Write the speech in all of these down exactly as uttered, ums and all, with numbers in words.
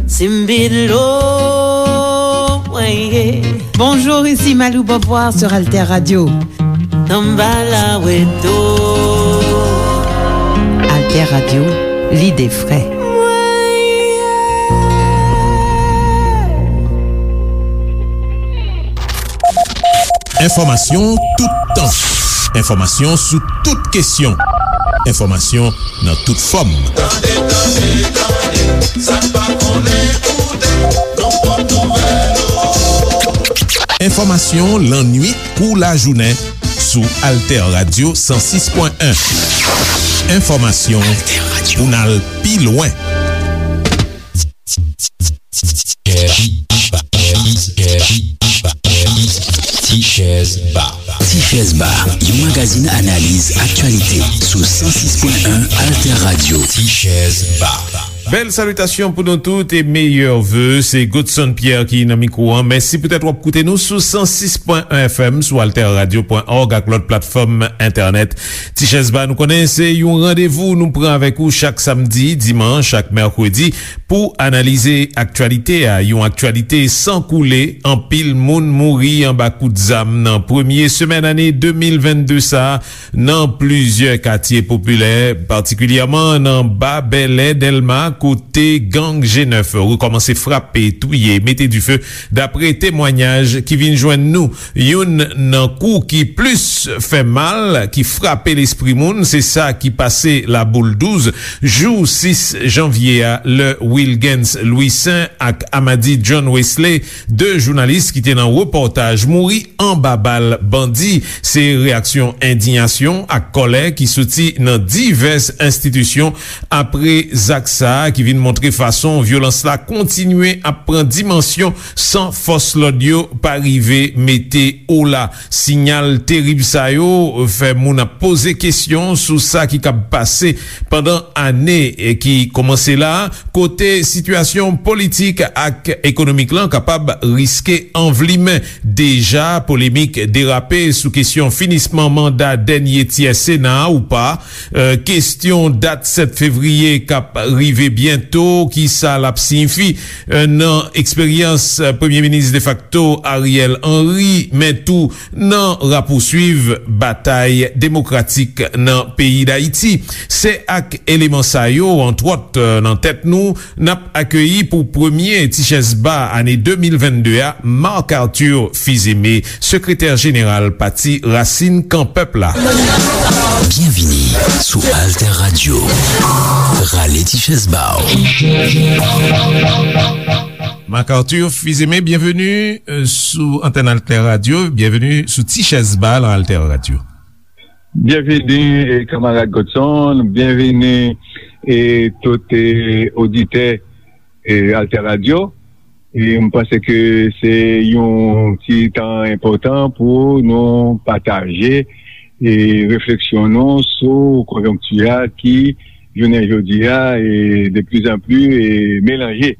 Simbilo, weye. Bonjour, ici Malou Beauvoir sur Alter Radio. Tambala weto. Alter Radio, lide fre. Enfòmasyon toutan. Enfòmasyon sou tout kesyon. Enfòmasyon nan tout fòm. Tande, tande, tande, sa n pa konnen koute, nan pwòp nouvèl ou. Enfòmasyon lannwit kou lajounen sou Alter Radio san sis pwen en. Enfòmasyon pou n al pi lwen. Tichèz Ba. Tichèz Ba, yon magazin analiz aktyalite sou san sis pwen en Alter Radio. Tichèz Ba. Bèl salitasyon pou nou tout e meyè ve. Se Godson Pierre ki nan mikwo an. Mèsi poutèt w ap koute nou sou san sis pwen en F M, sou alter radio pwen org ak lòt platfòm entènèt. Tichèz Ba, nou konnen se yon randevou nou pran avèk ou chak samdi, dimanch ak mèkredi pou analize aktyalite a, yon aktyalite san koule. Anpil moun mouri anba kout zam nan premye semèn ane de mil vennde sa a nan plizyè katye popilè, patikilyèman nan Ba Bèlè, Dèlma, kote gang G nèf rekòmanse frape, touye, mete dife, dapre temwanyaj ki vin jwenn nou. Youn nan kou ki plis fè mal, ki frape lespri moun, se sa ki pase Laboul douz, jou sis janvye a, lè Wilgens Louissaint ak Amady John Wesley, de jounalis ki te nan repòtaj, mouri anba bal bandi. Se reyaksyon endiyasyon ak kòlè ki soti nan divès enstitisyon apre zak sa a, ki vin montre fason vyolans la kontinye ap pran dimansyon san fòs lòd yo pa rive mete ola. Siyal terib sa yo fè moun ap poze kesyon sou sa ki kab pase pandan ane ki kòmanse la, kote sitiyasyon politik ak ekonomik lan kapab riske anvlimen. Deja, polemik derape sou kesyon finisman manda dènye tyè Sena a ou pa. Euh, kesyon dat sèt fevriye k ap rive byento, kisa l ap siyifi, euh, nan eksperyans, euh, Premye Minis defakto Ariel Henry, men tou nan rapouswiv batay demokratik nan peyi Dayiti. Se ak eleman sa yo, antwòt, euh, nan tèt nou, n ap akeyi pou premye Tichèz Ba ane de mil vennde a, Marc Arthur Fils-Aimé, sekretè jeneral Pati Rasin Kan Pèp la. Byenvini sou Alter Radio. Rale Tichèz Ba w. Marc Arthur Fils-Aimé, byenveni, euh, sou antèn Alter Radio. Byenveni sou Tichèz Ba nan Alter Radio. Byenveni, eh, kanmarad Godson, byenveni, eh, tout, eh, oditè, eh, Alter Radio. E m panse ke se yon ti tan enpòtan pou nou pataje, eh, refleksyon nou sou konjonkti a ki, jounen jodi a, eh, de plus en plus, eh, melanje.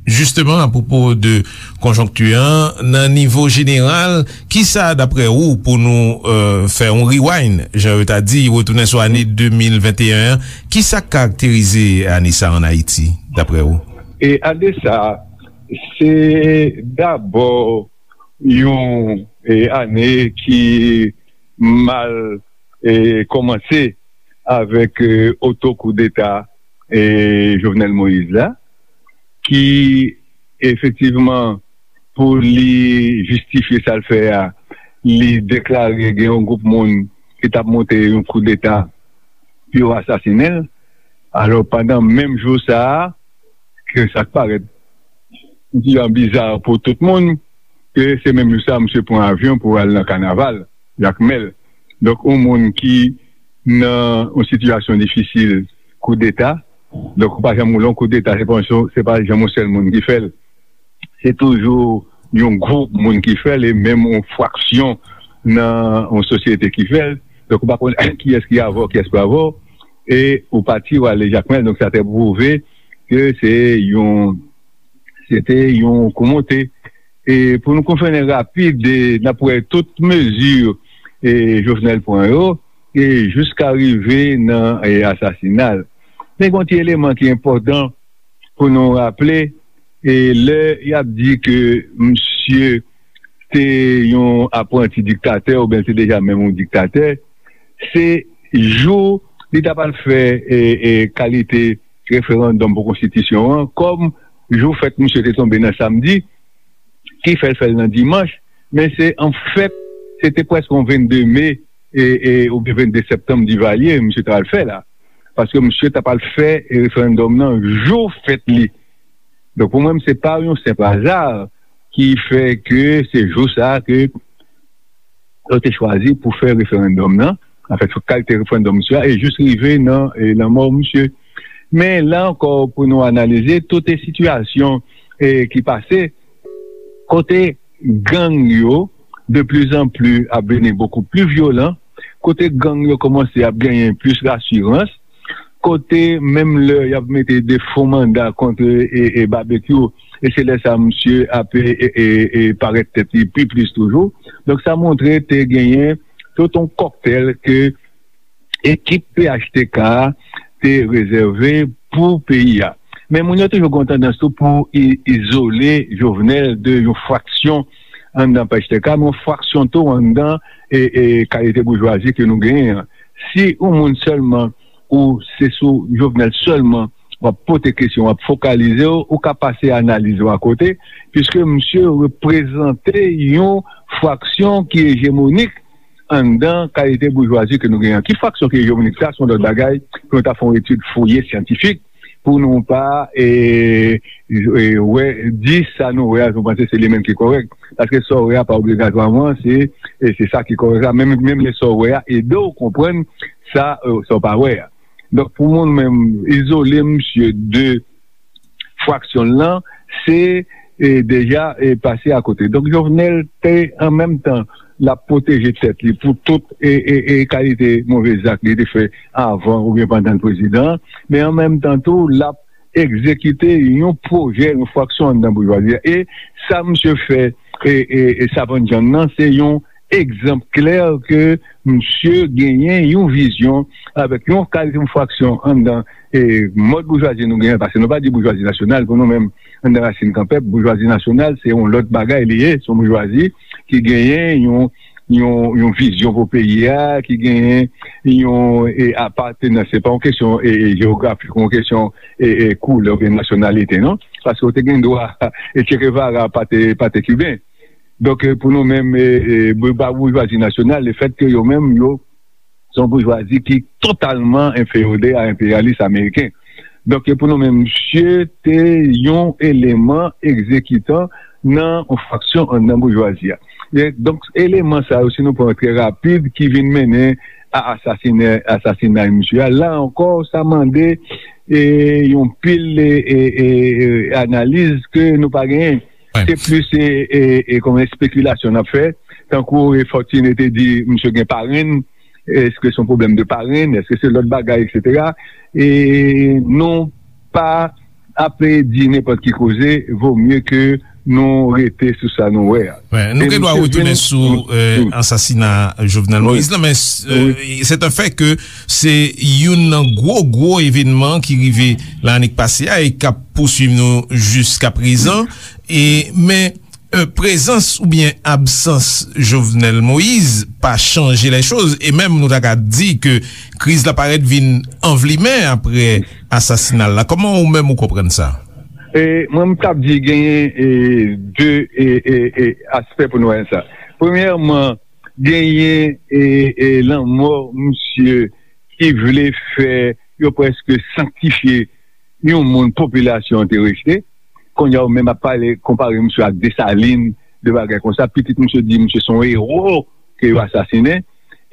Jisteman, apwopo de konjonkti an, nan nivo jeneral, kisa, daprè ou, pou nou, euh, fè yon rewind, jan yo ta di, retounen sou ane de mil venteyen an, kisa k karakterize ane sa a ann Ayiti, daprè ou? E ane sa a, se dabò yon, e, ane ki mal, e, kòmanse avèk, e, oto koudeta, e, Jovenel Moïse la, ki efektivman, pou li jistifye sa l fè a, li deklare gen yon gwoup moun ki t ap monte yon koudeta pou yo asasinen l. Alò, pandan menm jou sa a, ke sa k parèt yon ti jan biza pou tout moun, ke se menm jou sa a, misye pran avyon pou al nan kanaval Jakmèl. Donk, yon moun ki nan yon sitiyasyon difisil, koudeta, donk, ou pa janm, lè yon koudeta, se pa yon, se pa janm yon sèl moun ki fè l. Se toujou yon gwoup moun ki fè l, e menm yon fraksyon nan yon sosyete ki fè l. Donk, ou pa konn kiyès ki avè w, kiyès pa avè w. E ou pati, ou ale Jakmèl, donk sa te pwouve ke se yon, se te yon kou monte. E pou nou konfène rapid, e n ap wè tout mezi, e, Jovenel pran yo, e jiska rive nan, e, asasina l. Men gen yon ti eleman ki enpòtan pou nou raple, e lè y ap di ke misye te yon apranti diktatè oubyen l te deja menm yon diktatè, se jou li t ap al fè e, e, kalite referandòm pou konstitisyon an, kòm jou fèt misye te tonbe nan samdi, ki fè l fè l nan dimanch, men se an fèt, se te prèske yon vennde me e, e, oubyen vennde septanm Divalye, misye t al fè la. Paske misye t ap al fè referandòm nan jou fèt li. Donk, pou mwen, se pa yon senp aza ki fè ke se jou sa a ke yo te chwazi pou fè referandòm nan, anfèt, kalite referandòm misye a, e jis rive nan e, lanmò misye. Men la ankò, pou nou analize tout e sitiyasyon e, ki pase, kote gang yo de plus en plus ap vini beaucoup plus vyolan, kote gang yo kòmanse ap genyen plis rasirans, kote menm lè y ap mete de fo manda kont e, e, e Babekyou, e se lè sa misye ap e, e, e, e parèt tèt li pi plis toujou. Donk, sa montre te genyen tout yon kòktèl ke ekip P H T K a te rezève pou peyi a. Men moun yo toujou gen yon tandans tou pou i- izole Jovenel de yon fraksyon anndan P H T K, men yon fraksyon tou anndan e, e kalite boujwazi ke nou genyen an. Si yon moun sèlman, ou se sou Jovenel sèlman w ap pote kesyon, w ap fokalize w, ou ka pase analiz ou akote, piske misye reprezante yon fraksyon ki ejemonik anndan kalite boujwazi ke nou genyen an. Ki fraksyon ki ejemonik sa, se yon lòt bagay pou nou ta fè yon etid fouye syantifik, pou nou pa e, e, wè, di sa nou wè a, nou panse se li menm ki kòrèk. Paske sa w wè a pa obligatwaman se, e, se sa ki kòrèk la. Menm, menm lè sa w wè a ede w konprann sa, e, sa w pa wè a. Donk, pou mwen menm, izole misye de fraksyon l lan, se e, deja e, pase akote. Donk, Jovenel te, an menm tan, l ap pwoteje tèt li pou tout e, e, e kalite move zak li te fè avan oubyen pandan l prezidan, men an menm tan tou, l ap egzekite yon pwojè, yon fraksyon anndan boujwazi a. E sa misye fè e, e, e Savann John nan, se yon egzanp klè ke misye genyen yon vizyon avèk yon kalite yon fraksyon anndan e, mòd boujwazi nou genyen, paske nou pa di boujwazi nasyonal pou nou menm, anndan Rasin Kanpèp, boujwazi nasyonal, se yon lòt bagay li ye, se yon boujwazi ki genyen yon, yon, yon vizyon pou peyi a, ki genyen yon e, apatenans, se pa yon kesyon e, e, jewografik, yon kesyon e, e, koulè oubyen nasyonalite, non? Paske w te gen dwa, e, Che Guevara pa te, pa te kiben. Donk, e, pou nou menm, e, e, bou- ba boujwazi nasyonal, lefètke yo menm, yo, se yon boujwazi ki totalman enfeyode a enperyalis ameriken. Donk, e, pou nou menm, misye te yon eleman egzekitan nan yon fraksyon anndan boujwazi a. E, donk, eleman sa yo, si nou pran trè rapid, ki vin mennen a asasine, asasinay misye a, la ankò, sa mande e, yon pil e, e, e, e, analiz ke nou pa genyen. Se plis e, e, e, kòm espekilasyon n ap fè. Tankou e, Fortuné te di, misye gen parenn, èske se yon pwoblèm de parenn, èske se lòt bagay, etsetera. E nou pa ap di nenpòt ki koze, vo mye ke nou rete sou sa nou wè a. Wi, nou gen dwa retounen sou e, ansasina Jovenel Moïse la, men e, se te fè ke se youn nan gwo, gwo evènman ki rive lanne k pase a e k ap pouswiv nou jiska prezan. E, men e, prezans oubyen absans Jovenel Moïse pa chanje lè choz, e menm nou ta ka di ke kriz la parèt vin anvlimen apre asasina l la. Kòman ou menm ou konprann sa? E, mwen, m t ap di genyen e, de e, e, e, aspè pou nou wè sa. Premyèman, genyen e, e, lanmò misye ki vle fè yo prèske sanktifye yon moun popilasyon an te rejte. Kounye a, ou menm ap pale, konpare misye ak Desalin, de bagay konsa. Pitit misye di misye se yon ewo ke yo asasinen.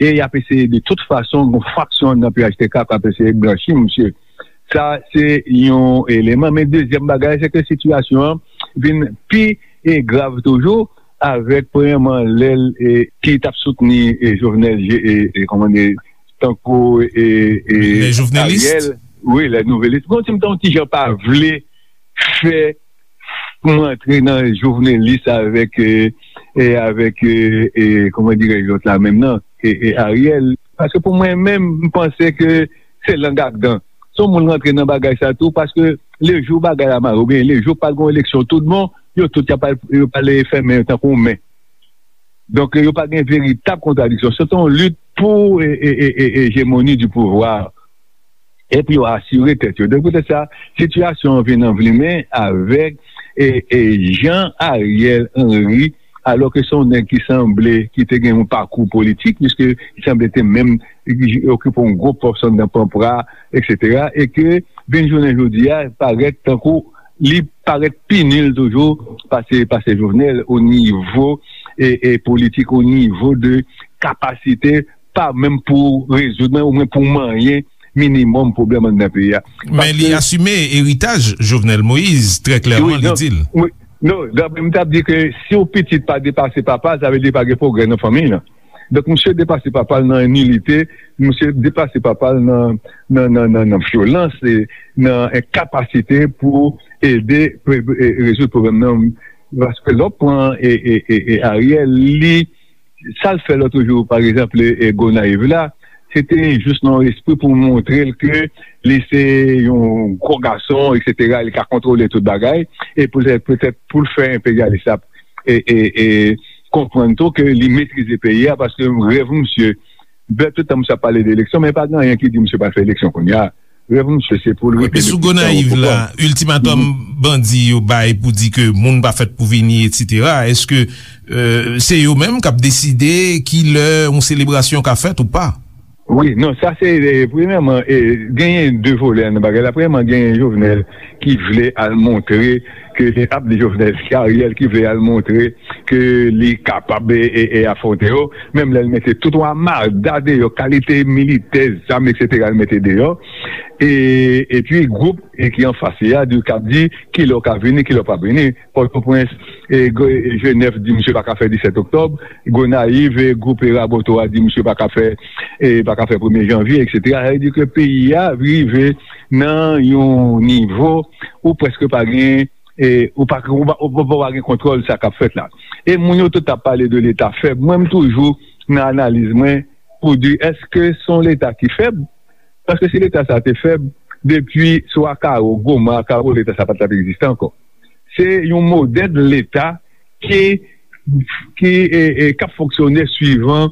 E y ap eseye de tout fason, yon fraksyon nan P H T K k ap eseye blanchi misye. Sa, se yon eleman. Men dezyèm bagay, se ke sitiyasyon an vin pi e grav toujou, avèk, premyèman, lè l e, ki t ap soutni e, Jovenel, e, e, kòman di, tankou e, e, Ariel. Wi, lè nouvelis. Bon, ti m ta yon ti jan pa vle fè m antre nan jovenelis avèk, e, e avèk, e, e, kòman dirèj lòt la menm nan, e, e Ariel. Paske pou mwen menm, m panse ke se lang ak dan. Se yon moun rantre nan bagay sa tou, paske lejou bagay la mare, oubyen lejou pral gen yon eleksyon tout bon, yo tout y ap al, yo pral fèmen yo tankou yon men. Donk, yo pa gen veritab kontradiksyon. Se yon lit pou e, e, e, e, ejemoni di pouvwa. E pou yo asire tèt yo. Donk, poutèt sa, sitiyasyon an vin anvlimen avèk e, e, jan Ariel Henry, alò ke se yon nèg ki sanble, ki te gen yon pakou politik, piske li sanble te menm okipe yon gwo pòs anndan Panpra, etsetera, e ke vin jounen jodi a, parèt tankou li parèt pi nil toujou pase, pase Jovenel o nivo e, e politik, o nivo de kapasite, pa menm pou rezoud, men omwen pou manyen minimòm pwoblèm anndan peyi a. Men li asime eritaj Jovenel Moïse, trè klèman, li di l. Non, m t ap di ke si yon pitit pa depase papa l, sa vle di pa gen pwogrè nan fanmiy lan. Donk, misye depase papa l nan nilite, misye depase papa l nan, nan, nan, nan, nan vyolans, e nan enkapasite pou ede, pou, e, rezoud pwoblèm nan. Paske lè w pran e, e, e, e Ariel, li, sa l fè lòt jou, pa egzanp, e, e Gonayiv la, se te jis nan yon espri pou montre l ke li se yon gwo gason, etsetera, li ka kontwole tout bagay, e poutèt, poutèt pou l fè enperyalis la e, e, e konprann tou ke li metrize peyi a, paske rèv misye, bè, tout tan misye ap pale de eleksyon, men pa gen anyen ki di misye pral fè eleksyon kounye a. Rèv misye se pou l rete le pli tan yo pran. Epi sou Gonayiv la, iltimatòm bandi yo bay pou di ke moun pa fèt pou vini, etsetera, èske, euh, se yo menm k ap deside kilè yon selebrasyon ka fèt ou pa? Wi, non, sa se, e, premyèman, e, genyen de volè nan bagay la. Premyèman, genyen Jovenel ki vle al montre ke, ap di Jovenel, se Ariel ki vle al montre ke li kapab e, e, e afwonte yo. Menm lè l mete tout yon amada deyò, kalite militè, zam, etsetera, l mete deyò. E, epi gwoup e ki anfas li a, di, k ap di kilè w ka vini, kilè w p ap vini. Pòtoprens, e, Jenèf di misye pa ka fè disèt oktòb. Gonayiv, e, gwoup, e, Raboto a di misye pa ka fè, e, pa ka fè premye janvye, etsetera. Sa vle di ke peyi a rive nan yon nivo ou prèske pa gen, e, ou pa, ou pa, ou pa, ou pa gen kontwòl sa k ap fèt la. E moun yo tout ap pale de Leta fèb. Mwen, m toujou nan analiz mwen pou di, èske se yon Leta ki fèb? Paske si Leta sa te fèb, depi sou Akaro, Goma, Akaro, Leta sa pa t ap egziste ankò. Se yon modèl Leta ki, ki, e, e, k ap fonksyone swivan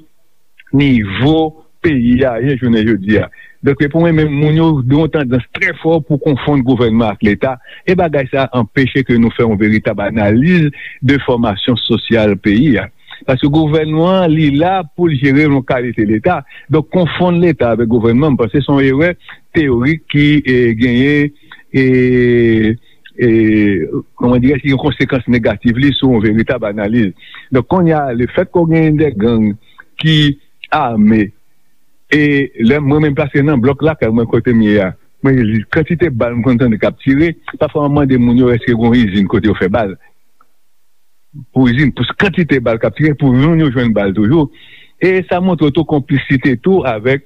nivo peyi a ye jounen jodi a. Donk, pou mwen menm, moun yo gen yon tandans trè fò pou konfonn gouvènman ak Leta, e bagay sa anpeche ke nou fè yon veritab analiz de fòmasyon sosyal peyi a. Paske gouvènman an, li la pou l jere yon kalite Leta. Donk, konfonn Leta avèk gouvènman, m panse se yon erè teyorik ki, e, genyen, e, e, kòman dirè, ki gen konsekans negatif li sou yon veritab analiz. Donk, kounye a, lefètke w genyen de gang ki ame, e lè mwen menm, paske nan blòk lakay mwen kote m ye a, mwen, kantite bal m konn tande k ap tire, pafwa m mande moun yo èske gen yon izin kote yo fè bal. Pou izin, pou kantite bal k ap tire, pou moun yo jwenn bal toujou. E sa montre w tou konplisite tou avèk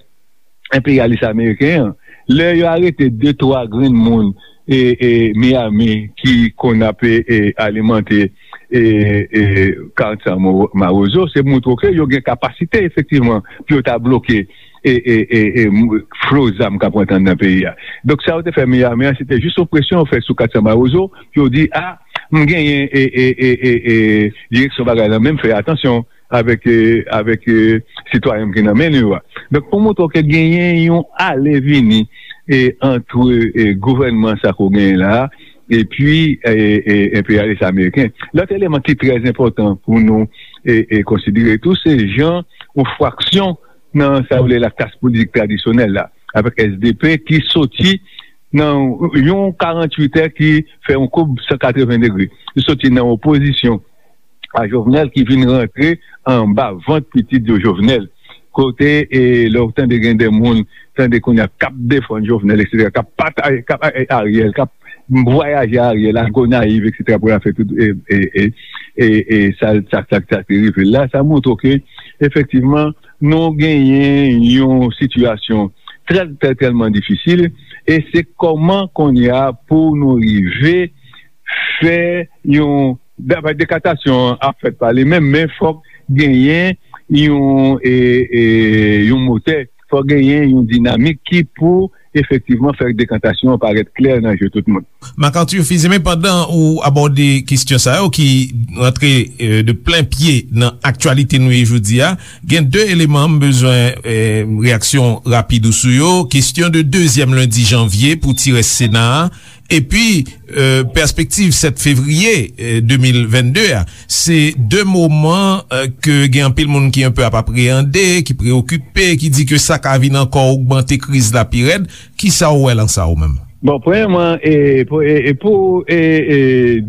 enperyalis ameriken an. Lè yo arete de, twa grenn moun e, e Miami ki konn ap, e, e, alimante, e, e, Carson Mawozo, se montre w ke yo gen kapasite, efektivman, pou yo ta bloke e, e, e, e, m-, flo zam k ap rantre anndan peyi a. Donk, sa yo te fè Miami an, se te jis yon presyon yo fè sou Carson Mawozo, pou yo di, a, m genyen, e, e, e, e, e, direksyon bagay la, men m fè atansyon avèk, e, avèk, e, sitwayen m ki nan men nou yo a. Donk, pou montre w ke genyen yon ale vini, e, antre, e, gouvènman sa ke w genyen la a, epi, e, e, enperyalis ameriken. Lòt eleman ki trè enpòtan pou nou, e, e, konsidere tou, se jan yon fraksyon nan sa yo rele la klas politik tradisyonèl la, avèk S D P ki soti nan yon karanntuit è ki fè yon koub san katreven degre. Li soti nan opozisyon a Jovenel ki vin rantre anba vant pitit yo Jovenel. Kote, e, lè w tande gen de moun, tande kounye a k ap defann Jovenel, etsetera, k ap pataje, k ap, e, Ariel, k ap vwayaje Ariel a Gonayiv, etsetera, pou l al fè tout, e, e, e, e, e, sa, sa, sa, sa te rive l la, sa montre w ke, efektivman, nou genyen yon sitiyasyon trè, trè, tèlman difisil, e se kòman kounye a pou nou rive fè yon, dapre dekatasyon an ap fèt pa li menm, men fòk genyen yon, e, e, yon motè, fòk genyen yon dinamik ki pou efektivman fè dekantasyon an parèt klè nan je tout moun. Marc Arthur Fils-Aimé, pandan ou abòde kesyon sa yo ki rantre, euh, de plen pye nan aktyalite nou ye jodi a, gen de eleman m bezwen, euh, reyaksyon rapid ou sou yo. Kesyon de dezyèm lendi janvye pou ti rès Sena a, epi, euh, pèspektiv sèt fevriye, euh, de mil vennde a. Se de moman, euh, ke gen anpil moun ki enpe ap apreyande, ki preyokipe, ki di ke sa ka vin ankò ogmante kriz la pi rèd. Kisa w wè lan sa ou menm? Bon, premyèman, e, pou, e, e pou, e, e,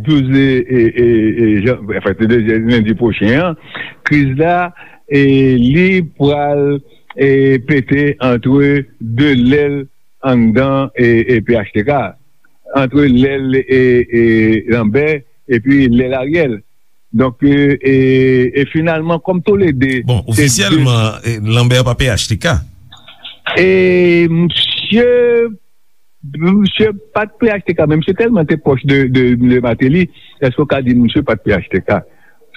douz, e, e, e, e, jan, anfen, se dezyèm lendi pwochen an, kriz la, e, li pral, e, pete antre de lèl anndan, e, e, P H T K, antre lèl, e, e, Lambert epi lèl Ariel. Donk, e, e, e finalman, kòm toulede, bon, se de ofisyèlman, e, Lambert pa P H T K. E misye, misye pa t P H T K, men misye tèlman te pwòch de, de, de Martelly, èske w ka di misye pa t P H T K?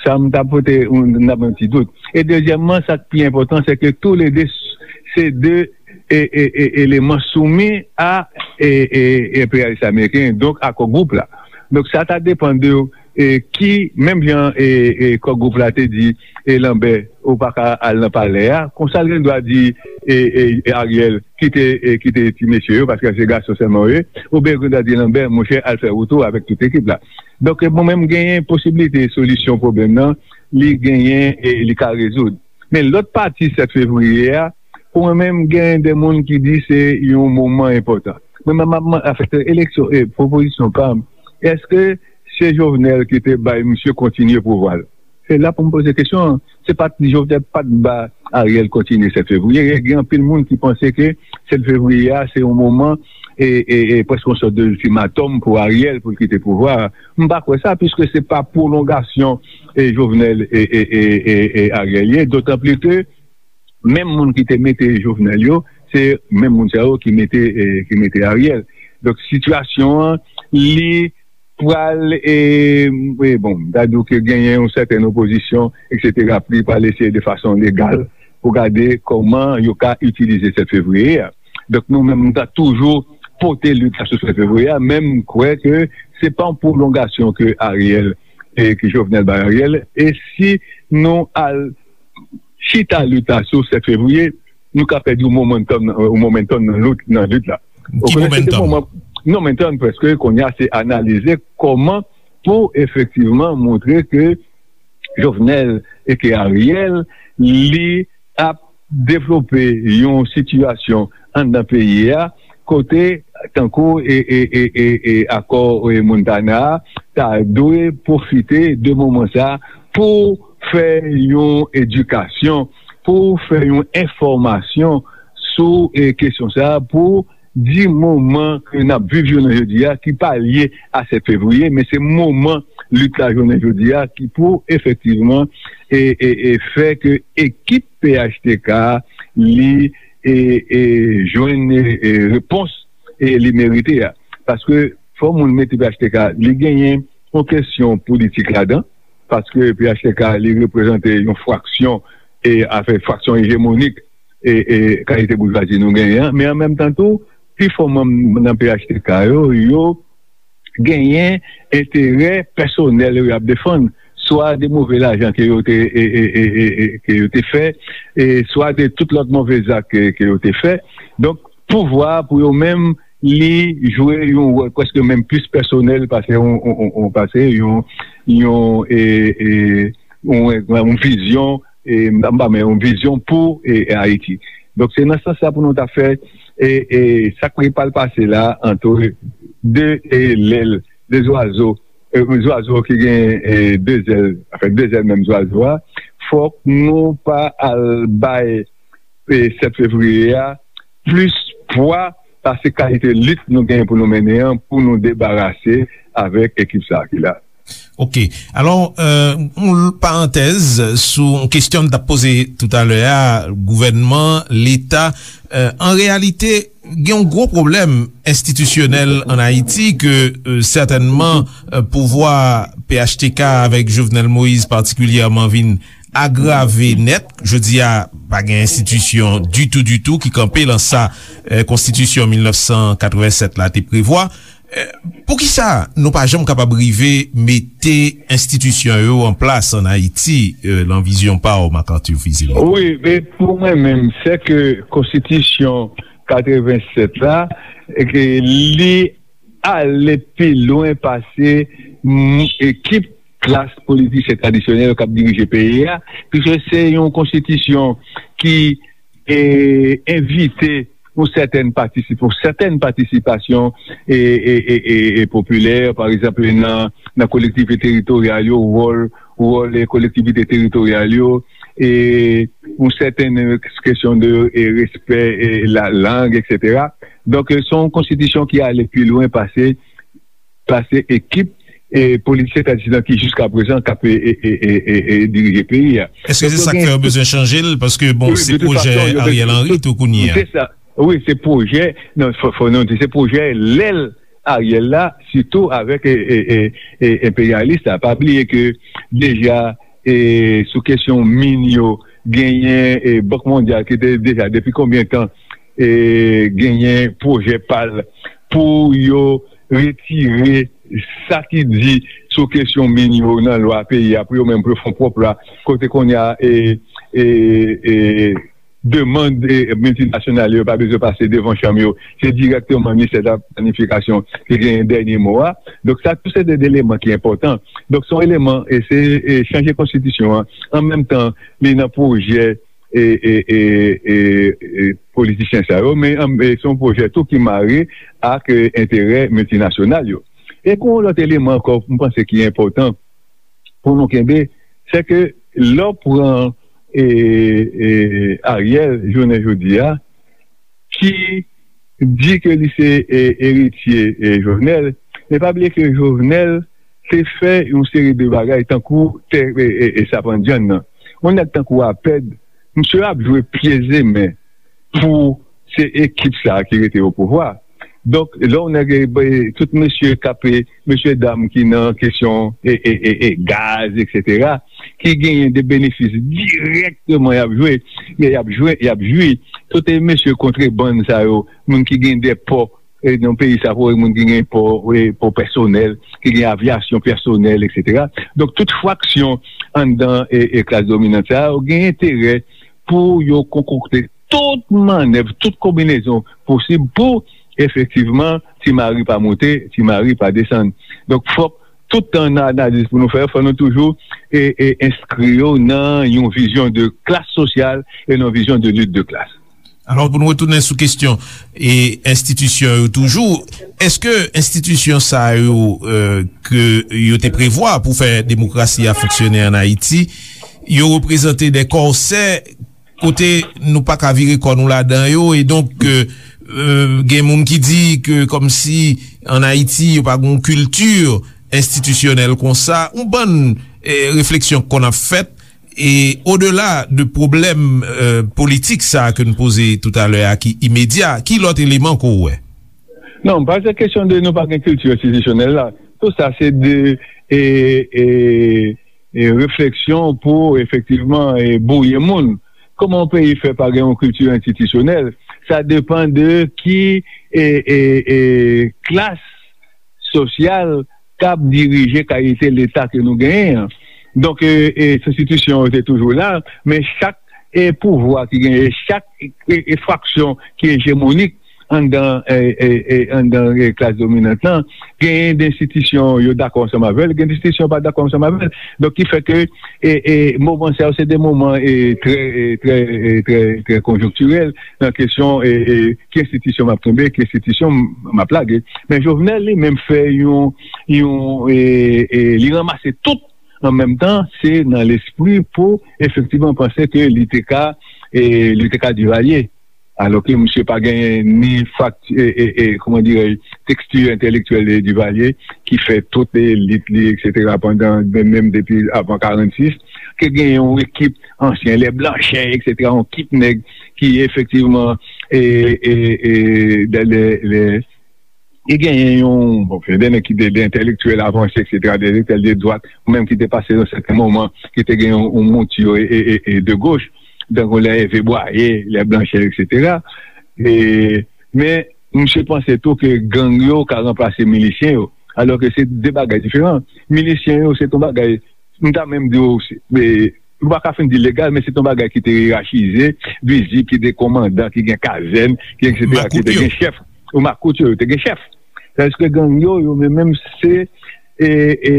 Sa m ta pote, m, m ta pran ti dout. E dezyèmman, sa k pi enpòtan, se ke toulede s-, se de, e, e, e, eleman soumi a, e, e, enperyalis ameriken, donk a Core Group la. Donk, sa ta depann de, e, ki, menm jan, e, e, Core Group la te di, e, Lambert, ou pa ka al nan palè a, konsa l gen dwa di, e, e, e, Ariel, kite, e, kite ti mesye yo, paske se gason sèlman yo ye, oubyen gen dwa di Lambert, monchè, al fè wout ou avèk tout ekip la. Donk, mwen menm, genyen posiblite solisyon pwoblèm nan, li genyen e li ka rezoud. Men lòt pati sèt fevriye a, pou mwen menm, genyen de moun ki di se yon moman enpòtan. Mwen menm, m ap man-, anfèt, eleksyon, e, pwopozisyon pa m, èske se Jovenel ki te bay misye kontinye pouvwa l? Se la pou m poze kesyon an. Se pa t Jovenel pa t ba Ariel kontinye sèt fevriye. Gen anpil moun ki panse ke sèt fevriye a, se yon moman, e, e, e, prèske yon sòt de iltimatòm pou Ariel pou l kite pouvwa a. M pa kwè sa, piske se pa pwolongasyon, e, Jovenel e, e, e, e, e Ariel ye, dotan pli ke menm moun ki te mete Jovenel yo, se menm moun sa yo ki mete, e, ki mete Ariel. Donk, sitiyasyon an, li pral, e, e, bon, m ta di w ke genyen yon sètèn opozisyon, etsetera, li pral eseye de fason legal pou gade kòman yo ka itilize sèt fevriye a. Donk, nou menm, nou ta toujou pote lit la sou sèt fevriye a, men m kwè ke se pa yon pwolongasyon ke Ariel, e ke Jovenel bay Ariel, e si nou al chita lit la sou sèt fevriye, nou ka pèdi yon momentum, yon momentum nan lit, nan lit la. Ki momentum? Momentum, prèske, kounye a, se analize kòman pou efektivman montre ke Jovenel e ke Ariel, li ap devlope yon sitiyasyon anndan peyi a, kote, tankou, e, e, e, e, e akò, e, Montana a, ta dwe pwofite de moman sa a pou fè yon edikasyon, pou fè yon enfòmasyon sou, e, kesyon sa a, pou di moman ke n ap viv jounen jodi a, ki pa lye a sèt fevriye, men se moman lit la jounen jodi a ki pou efektivman, e, e, e fè ke ekip P H T K li, e, e jwenn, e, e repons, e li merite a. Paske fò moun mete P H T K, li genyen yon kesyon politik ladan, paske P H T K li reprezante yon fraksyon, e afè fraksyon ejemonik, e, e kalite boujwazi nou genyen an, men an menm tan tou, pifò manm nan P H T K yo, yo genyen enterè pèsonèl yo y ap defann, swa de move lajan ke yo te, e, e, e, e, e, ke yo te fè, e swa de tout lòt move zak ke, ke yo te fè. Donk, pouvwa a pou yo menm, li jwe yon wòl prèske menm plis pèsonèl pase yon, yon, yon, yon, pase yon, yon, e, e, yon, yon vizyon, e, m pa, men yon vizyon pou, e, Ayiti. Donk, se nan sans sa pou nou ta fè, e, e, sa k pral pase la, antre de, e, lèl, de zwazo, e, zwazo ki gen, e, de zèl, anfen, de zèl menm zwazo a, fòk nou pa al bay, e, sèt fevriye a plis pwa pase kalite lit nou genyen pou nou mennen an, pou nou debarase avèk ekip sa a ki la. Ok. Alò, euh, yon parantèz sou yon kesyon m t ap poze toutalè a, gouvènman, Leta, euh, an reyalite, gen yon gwo pwoblèm enstitisyonèl ann Ayiti ke, euh, sètènman, euh, pouvwa P H T K avèk Jovenel Moïse patikilyèman vin agrave nèt. Jodi a, pa gen enstitisyon ditou, ditou ki kanpe lan sa, eh, Konstitisyon mil nèf san katrevennsèt la te prevwa. Eh, poukisa nou pa janm kapab rive mete enstitisyon yo an plas ann Ayiti, eh, lan vizyon pa w, Marc Arthur Fils-Aimé? Wi, men pou mwen menm, se ke Konstitisyon katrevennsèt la, e ke li ale pi lwen pase, mm, ekip klas politisyen tradisyonèl k ap dirije peyi a, piske se yon konstitisyon ki, e, envite yon sètèn patisip-, yon sètèn patisipasyon, e, e, e, e, e popilè, pa egzanp, nan, nan kolektivite teritoryal yo, wòl, wòl, e, kolektivite teritoryal yo, e yon sètèn, e, kesyon de, e, respè, e, la lang, etsetera. Donk, e, se yon konstitisyon ki ale pi lwen pase, pase ekip, e, politisyen tradisyonèl ki jiska prezan k ap, e, e, e, e, e, e dirije peyi a. Èske se sa k fè yo bezwen chanje l? Paske, bon, se pwojè Ariel Henry tou kounye a. Se sa. Wi, se pwojè, non, fò, fò nou di, se pwojè lè l Ariel la, sitou avèk, e, e, e, e, enperyalis la. Pa bliye ke deja, e, sou kesyon min yo, genyen, e, Bank Mondyal ki te deja, depi konbyen tan, e, genyen pwojè pa l pou yo retire sa ki di sou kesyon min yo nan lwa peyi a, pou yo menm, pou yo fè yon pwòp lwa, kote kounye a, e, e, e, demann, e, miltinasyonal yo pa bezwen pase devan chanm yo. Se dirèkteman ministè de la planifikasyon ki genyen dènye mo a. Donk, sa tou se de eleman ki enpòtan. Donk, se yon eleman, e se, e, chanje konstitisyon an. An menm tan, li nan pwojè, e, e, e, e, e, politisyen sa yo, men, an, e, se yon pwojè tou ki mare ak, e, enterè miltinasyonal yo. E gen yon lòt eleman ankò, m panse ki enpòtan pou nou kenbe, se ke lè w pran, e, e, Ariel, jounen jodi a, ki di ke li se, e, eritye, e, Jovenel, men pa bliye ke Jovenel te fè yon seri de bagay tankou tè, e, e, e, Sapandyann nan. Yon nèg tankou Apèd, misye ap jwe pye zemen pou se ekip sa a ki rete o pouvwa. Donk, lè w nèg, e, tout mesye k ap, e, mesye dam ki nan kesyon, e, e, e, e, gaz, etsetera, ki genyen de benefis dirèkteman y ap jwe, y ap jwe, y ap jwi. Tout, e, mesye kontrebann sa yo, moun ki gen de pò, e, nan peyi sa, pou moun ki gen pò, e, pò pèsonèl, ki gen avyasyon pèsonèl, etsetera. Donk, tout fraksyon anndan, e, e, klas dominant sa yo gen enterè pou yo konkokte tout mannèv, tout konbinezon posib pou, efektivman, Ti Mari pa moute, Ti Mari pa desann. Donk, fòk tout tan nan analiz pou nou fè, fò nou toujou, e, e, enskri yo nan yon vizyon de klas sosyal e nan yon vizyon de lit de klas. Alò, pou nou retounen sou kesyon e enstitisyon yo toujou, èske enstitisyon sa yo, e, ke yo te prevwa pou fè demokrasi a fonksyone ann Ayiti, yo reprezante de kòsè kote nou pa ka vire kò nou ladan yo, e donk, e, e, gen moun ki di ke kòmsi ann Ayiti yo pa gen yon kilti enstitisyonèl konsa, yon bann, e, refleksyon konn ap fèt, e odela de pwoblèm, e, politik sa a ke n poze toutalè a ki imedya, ki lòt eleman ke w wè? Non, pa se kesyon de nou pa gen kilti enstitisyonèl la. Tout sa se de, e, e, e, refleksyon pou efektivman, e, bwouye moun. Kòman yon peyi fè pa gen yon kilti enstitisyonèl? Sa depann de ki, e, e, e, klas sosyal k ap dirije kalite Leta ke nou genyen an. Donk, e, e, enstitisyon yo te toujou la, men chak, e, pouvwa ki genyen, chak, e, e, fraksyon ki ejemonik anndan, e, e, e, anndan, e, klas dominant lan, genyen de enstitisyon yo dakò ansanm avè l, gen de enstitisyon yo pa dakò ansanm avè l. Donk, ki fè ke, e, e, moman sa yo, se de moman, e, trè, e, trè, e, trè, trè konjonktirèl nan kesyon, e, e, ki enstitisyon m ap kenbe, ki enstitisyon m, m ap lage. Men Jovenel li menm fè yon, yon, e, e, li ranmase tout an menm tan, se nan lespri pou efektivman panse ke li te ka, e, li te ka Divalye. Alò ke misye pa genyen ni fakti, e, e, e, kòman dirèj, teksti entèlektyèl de Divalye, ki fè tout elit li, etsetera, pandan, menm, menm depi avan karannsis, ke genyen yon ekip ansyen, lè Blanchè, etsetera, yon ekip nèg ki efektivman, e, e, e, de, de, de, E genyen yon, bon, gen de nèg ki te de entèlektyèl avanse, et cetera, de entèlektyèl de dwat, ou menm ki te pase nan sèten moman, ki te gen yon, yon mouti e, e, e, e de goch, tankou lè Ève Bwaye, lè Blanchè, et cetera. E, men, misye panse tou ke gang yo ka ranplase milisyen yo, alò ke se de bagay diferan. Milisyen yo, se yon bagay, m ta menm di w, se, e, ou pa ka fin di legal, men se yon bagay ki te yerachize, vizib, ki te komandan, ki gen kazèn, ki et cetera, ki te gen chèf. Ou makout yo, yo te gen chèf. Tandis ke gang yo, yo menm, menm se, e, e,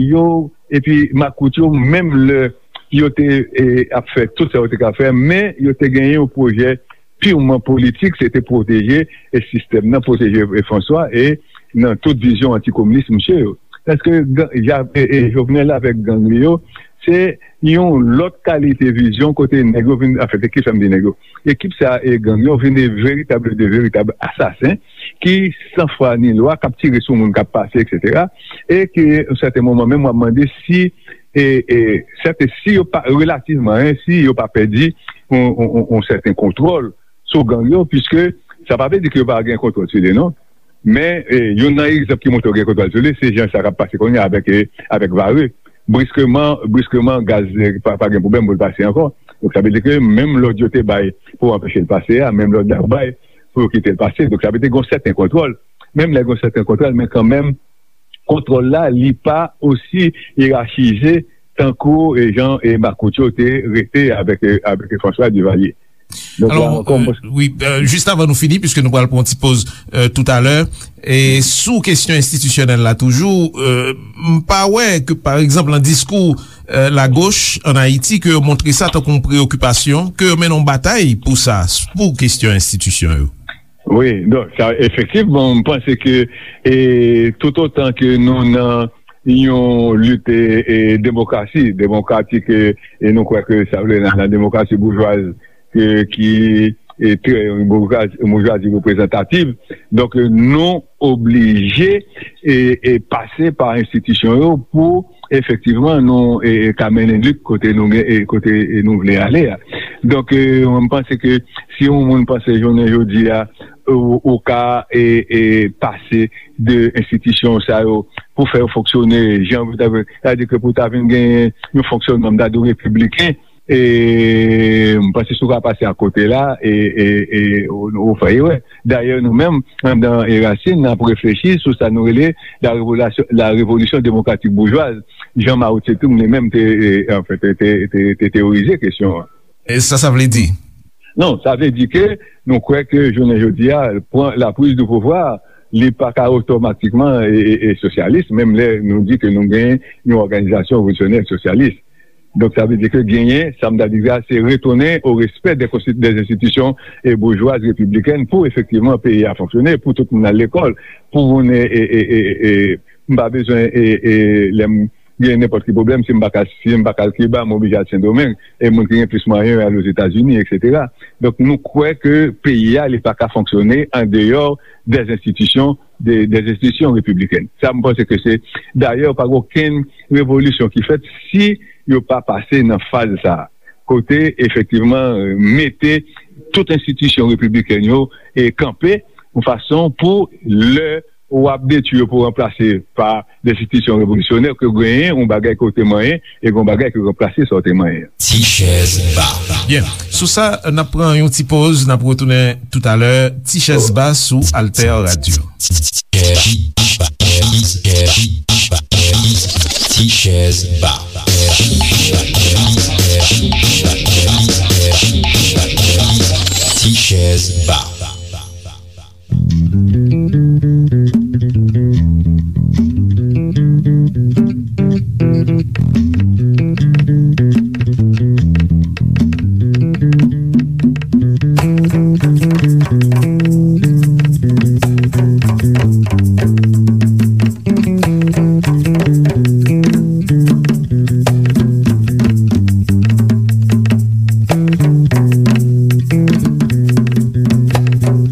yo, epi makout yo, menm lè yo te, e, ap fè tout sa yo te ka fè, men yo te gen yon pwojè pirman politik, se te pwoteje, e, sistèm nan, pwoteje, e, François, e nan tout vizyon antikominis misye yo. Paske gang, Ja-, e, e, Jovenel avèk gang li yo, se yon lòt kalite vizyon kote nèg yo vin, anfen, se ki sa m di nèg yo. Ekip sa e gang yo vin de veritab, de veritab asasen ki san fwa ni lwa, k ap tire sou moun k ap pase, et cetera. E ke, yon sèten moman, menm w ap mande si, e, e, sèten, si yo pa, relativman, en, si yo pa pèdi yon, yon, yon, yon sèten kontwòl sou gang yo, piske sa pa vle di ke yo pa gen kontwòl sou li, non. Men, e, youn nan egzanp ki montre yo gen kontwòl sou li, se jan sa k ap pase kounye a avèk, e, avèk Varreux. Briskeman, briskeman, gaz, e, pa, pa gen pwoblèm pou l pase ankò. Donk, sa vle di ke menm lòd yo te bay pou anpeche l pase a, menm lòd la yo bay pou yo kite l pase. Donk, sa vle di gen yon sèten kontwòl. Menm lè gen yon sèten kontwòl, men kanmenm, kontwòl la, li pa osi yerachize tankou, e, jan, e, makout yo te rete avèk, e, avèk François Duvalier. Donk, la ankò, mwen, wi, e, jis avan nou fini, piske nou pral pran yon ti poz, e, toutalè, e sou kesyon enstitisyonèl la toujou, e, m pa wè ke, pa egzanp, nan diskou, e, lagoch ann Ayiti, ke yo montre sa tankou yon preyokipasyon, ke yo mennen yon batay pou sa, pou kesyon enstitisyon yo. Wi, donk, sa, efektivman, m panse ke, e, toutotan ke nou nan yon lit, e, e, demokrasi, demokratik, e, e nou kwè ke sa vle nan, nan demokrasi boujwaz, e, ki, e, trè, boujwaz-, boujwazi reprezantativ. Donk, e, nou oblije, e, e, pase pa enstitisyon yo pou efektivman nou, e, e, ka mennen lit kote nou gen, e, kote, e, nou vle ale a. Donk, e, mwen, m panse ke si yon moun panse jounen jodi a, ou, ou ka, e, e, pase de enstitisyon sa yo pou fè yo fonksyone jan, sa vle di ke pou ta vin gen yon fonksyònman, m ta di w, repibliken, e, m panse si w ka pase akote la, e, e, e, ou, ou fè erè. Dayè, nou menm, anndan Erasin, n ap reflechi sou sa nou rele la revolasyon, la révolution démocratique bourgeoise, jan Mao Tse-tung li menm te, e, anfen, te, te, te, te teyorize kesyon an. E sa, sa vle di? Non, sa vle di ke nou kwè ke jounen jodi a, pran la prise de pouvoir, li pa ka otomatikman e, e, e sosyalis, menm lè nou di ke nou gen yon òganizasyon revolisyonè sosyalis. Donk, sa vle di ke genyen, sa m ta di a, se retourner au respect des consti-, des institutions, e, bourgeoises républicaines pou efektivman peyi a fonksyone, pou tout moun al lekòl, pou moun, e, e, e, e, e, m pa bezwen, e, e, lè m gen nenpòt ki pwoblèm, si m pa ka, si m pa ka al Kiba, m oblije al Sendomeng, e moun ki gen plis mwayen yo al Ozetazini, et cetera. Donk, nou kwè ke peyi a, li pa ka fonksyone an deyò des institutions, de, des institutions républicaines. Sa, m panse ke se, dayè, pa gen okenn revolisyon ki fèt si yo pa pase nan faz sa a. Kote, efektivman, mete tout enstitisyon repibliken yo, e, kanpe yon fason pou lè w ap detwi yo pou ranplase pa de enstitisyon revolisyonè, ke genyen yon bagay ke w te manyen, e gen yon bagay ki ranplase sa w te manyen. Ti chèz ba. Byen, sou sa, n ap pran yon ti poz, n ap retounen toutalè. Ti chèz ba sou Alter Radio. Ti chèz ba. Ti chèz ba.